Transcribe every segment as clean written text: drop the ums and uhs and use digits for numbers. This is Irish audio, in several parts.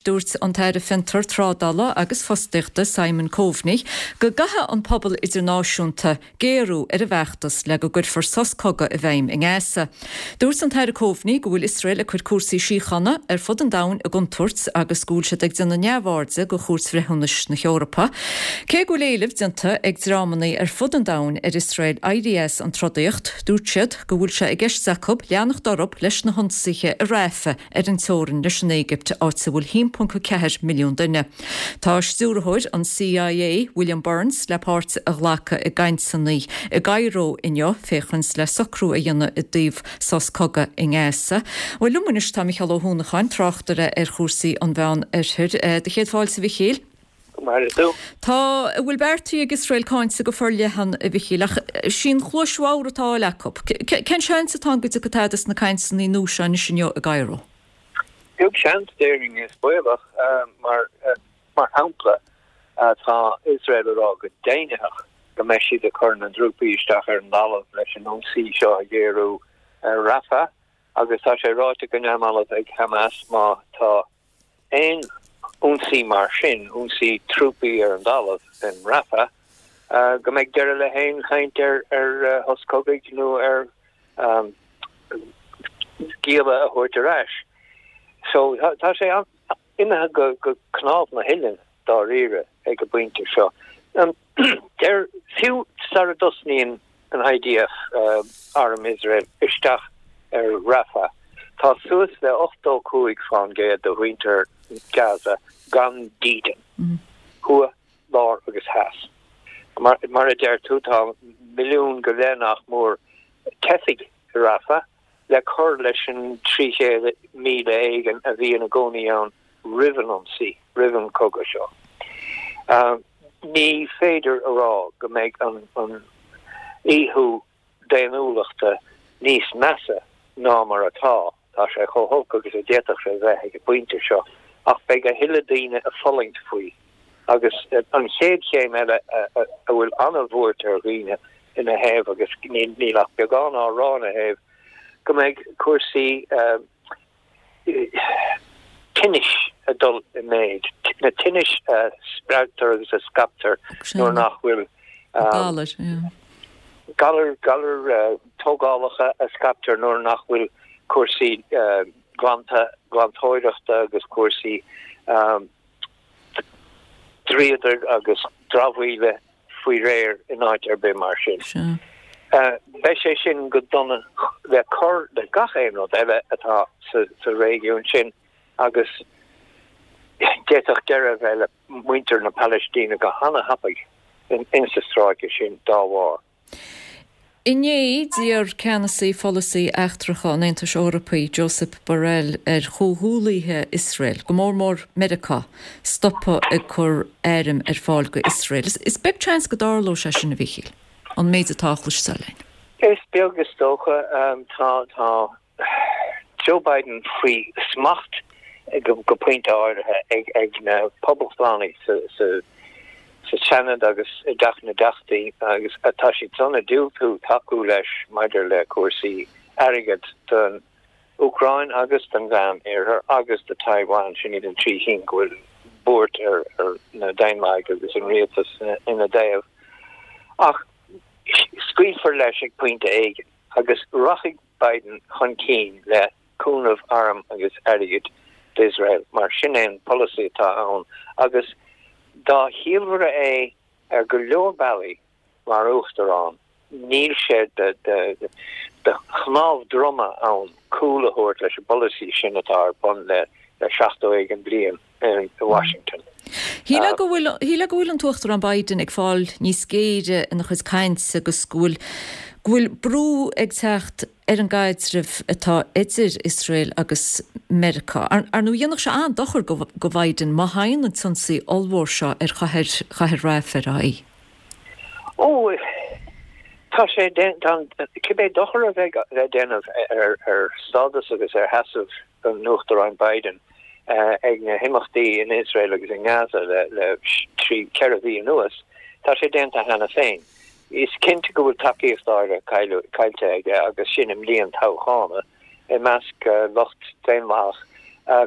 Dúirt an tAire Fiontar, Trádála agus Fostaíochta Simon Coveney go gcaithfidh an pobal idirnáisiúnta géarú ar an bhfeachtas le go gcuirfear sos cogaidh i bhfeidhm i nGaza. Dúirt an tAire Coveney go bhfuil Iosrael ag cur cúrsaí síochána ar fud an domhain i gcontúirt agus go bhfuil siad ag déanamh neamhairde de Chúirt Bhreithiúnais na hEorpa. Cé go bhfuil éileamh déanta ag dreamanna ar fud an domhain ar Iosrael éirí as an trodaíocht, dúirt siad go bhfuil sé i gceist acu leanacht orthu leis na hionsaithe i Rafah ar an teorainn leis an Éigipt, áit a bhfuil 1.4 milliún duine. Tá stiúrthóir an CIA, William Burns, le páirt a ghlacadh i gcainteanna i gCairo inniu féachaint le socrú a dhéanamh i dtaobh sos cogaidh i nGaza. Bhuel, liom anois tá Micheál Ó hUanacháin, tráchtaire ar chúrsaí an Mheán Oirthir. Do chéad fáilte, a Mhichíl. Go maire tú. Tá a bhfuil beartaithe ag Iosrael cáinte go forleathan, a Mhichíl, ach sí an chluais bhodhar atá á fháil acu. Cén seans atá ann go dtiocfaidh tada as na cainteanna nua seo anois inniu i gCairo? Beag seans, déarfainn, is baolach. Mar mar shampla, tá Iosrael ag rá go deimhnitheach go mbeidh siad ag cur na dtrúpaí isteach ar an dtalamh leis an ionsaí seo a ghéarú ar Rafah agus tá sé ráite go neamhbhalbh ag Hamas má tá aon ionsaí mar sin, ionsaí trúpaí ar an dtalamh in Rafah, go mbeidh deireadh le haon chaint ar shos cogaidh nó ar ghialla a thabhairt ar ais. So tá sé imithe go cnámh na huilleann dáiríre ag an bpointe seo. Deir, fiú sara dtosnaíonn an IDF, Arm Iosrael, isteach ar Rafah, tá suas le 85% de mhuintir Gaza gan dídean, thuaidh, lár agus theas. Mar a deir tú, tá milliún go leith nach mór teifigh i Rafah, le cur leis an 300,000 éigin a bhí ina gcónaí ann roimh an ionsaí, roimh an chogadh seo. Ní féidir a rá go mbeidh an ithú daonnúlachta níos measa ná mar atá, tá sé chomh holc agus a d'fhéadfadh sé bheith ag an bpointe seo, ach beidh a thuilleadh daoine ag fulaingt faoi. Agus an chéad chéim eile a bhfuil an-bhuairt ar dhaoine ina thaobh, agus níl ach beagán á rá ina thaobh, go mbeidh cúrsaí tinnis ag dul i méid, na tinnis a spreagtar agus a scaiptear nuair nach bhfuil galair, galair, galair tógálacha a scaiptear nuair nach bhfuil cúrsaí glanta, glantóireachta agus cúrsaí dríodair agus dramhaíola faoi réir in áit ar bith mar sin. Beidh sé sin go dona le cur le gach aon rud eile atá sa réigiún sin agus d'fhéadfadh deireadh a bheith le muintir na Palaistíne go hana-thapaidh insa stráice sin dá bharr. Inné, d'iarr ceannasaí pholasaí eachtracha an Aontais Eorpaigh, Josep Borrell, ar chomhghuallaithe Iosrael, go mór mór Meiriceá, stopadh ag cur airm ar fáil go Iosrael. Is beag seans go dtarlóidh sé sin, a Mhíchíl, an méid atá á chloisteáil againn. Is beag is dócha. Tá. Joe Biden faoi smacht go pointe áirithe ag na Poblachtánaigh sa Seanad agus i dTeach na dTeachtaí agus tá siad san ag diúltú tacú leis maidir le cúrsaí airgid don Úcráin agus don Mheán Oirthear agus do Taiwan, sin iad an trí chinn go bhfuil buairt ar na Daonlathaigh agus an rialtas ina dtaobh. Ach scaoilfear leis ag pointe éigin agus rachaidh Biden chun cinn le cúnamh arm agus airgid d'Iosrael mar sin é an polasaí atá ann agus dá chiallmhaire é ar go leor bealaí mar uachtarán níl sé de chnámh droma ann cúl a thabhairt leis an bpolasaí sin atá ar bun le 70 éigin bliain i Washington. Shílfeá go bhfuil, shílfeá go bhfuil an tUachtarán Biden ag fáil níos géire ina chuid cainte agus go bhfuil, go bhfuil brú ag teacht ar an gcaidreamh atá idir Iosrael agus Meiriceá. Ar, ar ndóigh dhéanfadh sé an-dochar go, go Biden má thagann an t-ionsaí ollmhór seo ar chathair, chathair Rafah ar aghaidh. Ó, tá sé, tá an, cibé dochar a bheidh le déanamh ar, ar stádas agus ar sheasamh an Uachtaráin Biden ag na himeachtaí in Iosrael agus i nGaza le 3, 4 mhí anuas, tá sé déanta cheana féin. Is cinnte go bhfuil tacaíocht áirithe caillte aige agus sin i mbliain toghchána i measc lucht daonlathach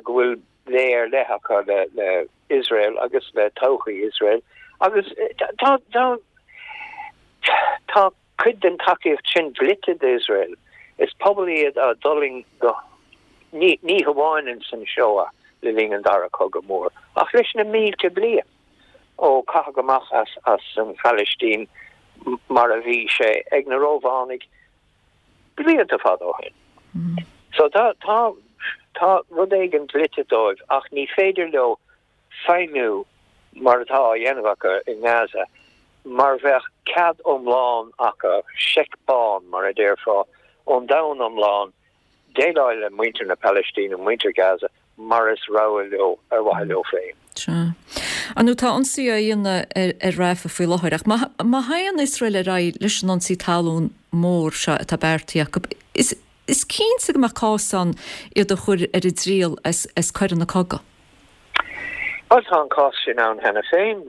go bhfuil. lé ar leith acu le le Iosrael agus le todhchaí Iosrael agus tá tá tá cuid den tacaíocht sin dlite d'Iosrael. Is pobal iad a d'fhulaing go ní ní hamháin ins an Shoah le linn an Dara Cogadh Mór ach leis na mílte bliain ó caitheadh amach as as an Phalaistín mar a bhí sé ag na Rómhánaigh blianta fada ó shin. So tá, tá, tá rud éigin dlite dóibh ach ní féidir leo feidhmiú mar atá á dhéanamh acu i nGaza mar bheadh cead iomlán acu, seic bán mar a déarfá, ón domhan iomlán déileáil le muintir na Palaistíne, muintir Gaza, mar is rogha leo, ar mhaithe leo féin. Sea. Ar ndóigh, tá ionsaí á dhéanamh ar Rafah faoi láthair, ach má théann Iosrael ar aghaidh leis an ionsaí talún mór seo atá beartaithe acu, is is cinnte go mbeadh cás ann iad a chur ar a dtriail as as coireanna cogaidh. Bhuel, tá an cás sin ann cheana féin.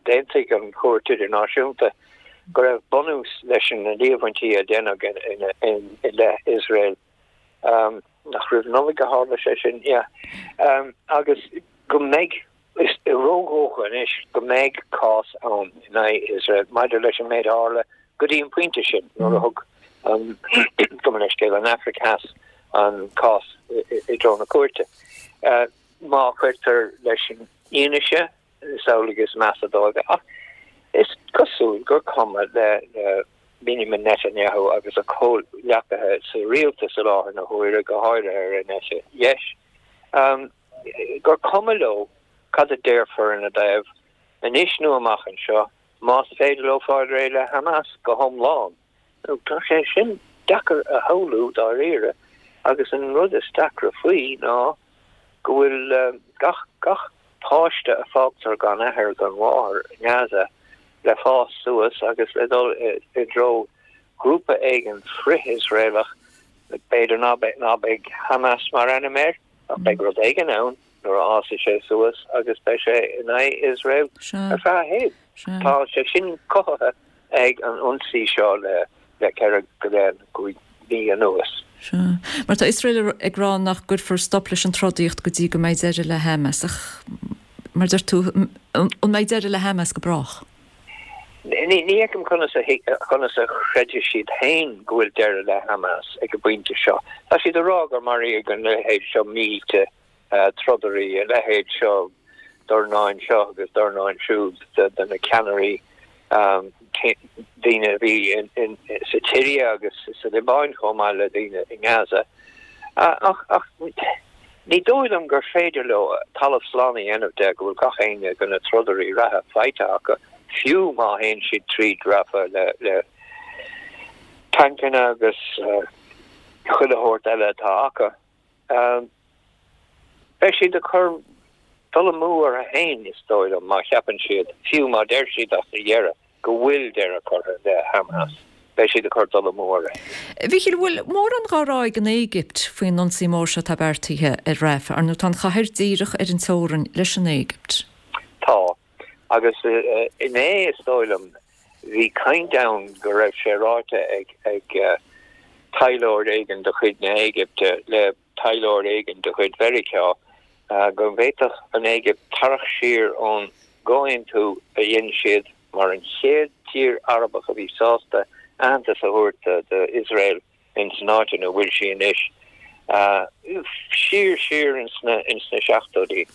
D'aontaigh an Chúirt Idirnáisiúnta go raibh bunús leis na líomhaintí a deineadh i leith Iosrael. Nach roimh Nollaig a tharla sé sin? Yeah. Agus go mbeidh, is ródhócha anois go mbeidh cás ann in aghaidh Iosrael maidir leis an méid a tharla go dtí an pointe sin nuair a thug an, gabh mo leithscéal, an Afraic Theas an cás i dtreo na cúirte. Má chuirtear leis an fhianaise, Is amhlaidh is measa dóibh é. Ach is cosúil gur cuma le Benjamin Netanyahu agus a chomhghleacaithe sa rialtas i láthair na huaire, go háirithe ar an eite dheis, gur cuma leo cad a déarfar ina dtaobh anois nó amach anseo, más féidir leo fáil réidh le Hamas go hiomlán. Tá sé sin deacair a shamhlú dáiríre agus an rud is deacra faoi ná go bhfuil gach gach páiste a fágtar gan athair gan mháthair i nGaza le fás suas agus le dul i dtreo grúpa éigin frith-Iosraelach, b'fhéidir ná beidh ná beidh Hamas mar ainm air ach beidh rud éigin ann nuair a fhásfaidh sé suas agus beidh sé in aghaidh Iosrael ar feadh a shaoil. Tá sé sin cothaithe ag an ionsaí seo le 4 go leith nó 5 mhí anuas. Sea. Mar tá Iosrael ag rá nach gcuirfear stop leis an trodaíocht go dtí go mbeidh deireadh le Hamas. Ach, mar a deir tú, an mbeidh deireadh le Hamas go brách? Ní fheicim conas a conas a chreidfidh siad féin go bhfuil deireadh le Hamas ag an bpointe seo. Tá siad ag rá gur maraíodh an leithéid seo mílte trodairí, a leithéid seo dornáin seo agus dornáin siúd de na ceannairí, daoine a bhí sa tSiria agus sa Liobáin chomh maith le daoine i nGaza. Ach ní dóigh liom gur féidir leo talamh slán a dhéanamh de go bhfuil gach éinne de na trodairí reatha faighte acu, fiú má théann siad tríd Rafah le tancanna agus chuile shórt eile atá acu. Beidh siad ag cur dul amú orthu féin, is dóigh liom, má cheapann siad, fiú má deir siad as a dheireadh go bhfuil deireadh curtha le Hamas, beidh siad ag cur dul amú orthu féin. A Mhíchíl, an bhfuil mórán dhá rá ag an Éigipt faoin ionsaí mór seo atá beartaithe ar Rafah? Ar ndóigh, tá an chathair díreach ar an teorainn leis an Éigipt. Tá. Agus inné, is dóigh liom, bhí caint ann go raibh sé ráite ag ag taidhleoir éigin de chuid na hÉigipte le taidhleoir éigin de chuid Mheiriceá go bhféadfadh an Éigipt tarraingt siar ón gcomhaontú a dhein siad mar an chéad tír Arabach a bhí sásta aitheantas a thabhairt d'Iosrael ins an áit ina bhfuil sí anois, siar siar ins na ins na seachtóidí,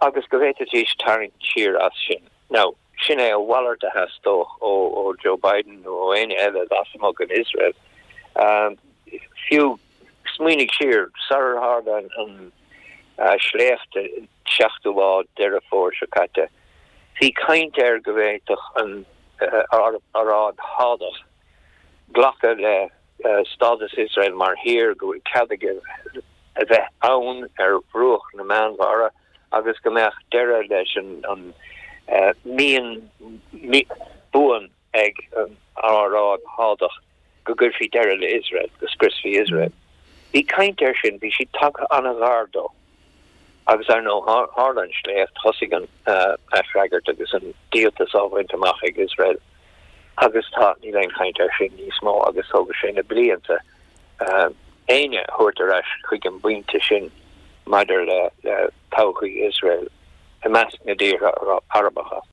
agus go bhféadfaidís tarraingt siar as sin. Now, sin é a mhalairt a theastódh ó ó Joe Biden nó ó éinne eile lasmuigh den Iosrael. Fiú, smaoinigh siar, sarar tharla an an sléacht an seachtú lá Deireadh Fómhair seo caite, bhí caint air go bhféadfadh an Aráib Shádach glacadh le stádas Iosrael mar thír, go bhfuil cead aige a bheith ann ar bhruach na Meánmhara agus go mbeadh deireadh leis an mian buan ag an Aráib Shádach go gcuirfí deireadh le Iosrael, go scriosfaí Iosrael. Bhí caint air sin, bhí siad tagtha an-ghar dó. Agus ar ndóigh, tharla an sléacht, thosaigh an aisfhreagairt agus an díoltas á bhaint amach ag Iosrael agus tá, níl aon chaint air sin níos mó agus tógfaidh sé na blianta éinne a thabhairt ar ais chuig an bpointe sin. maidir le todhchaí Iosrael i measc na dtíortha Arabacha.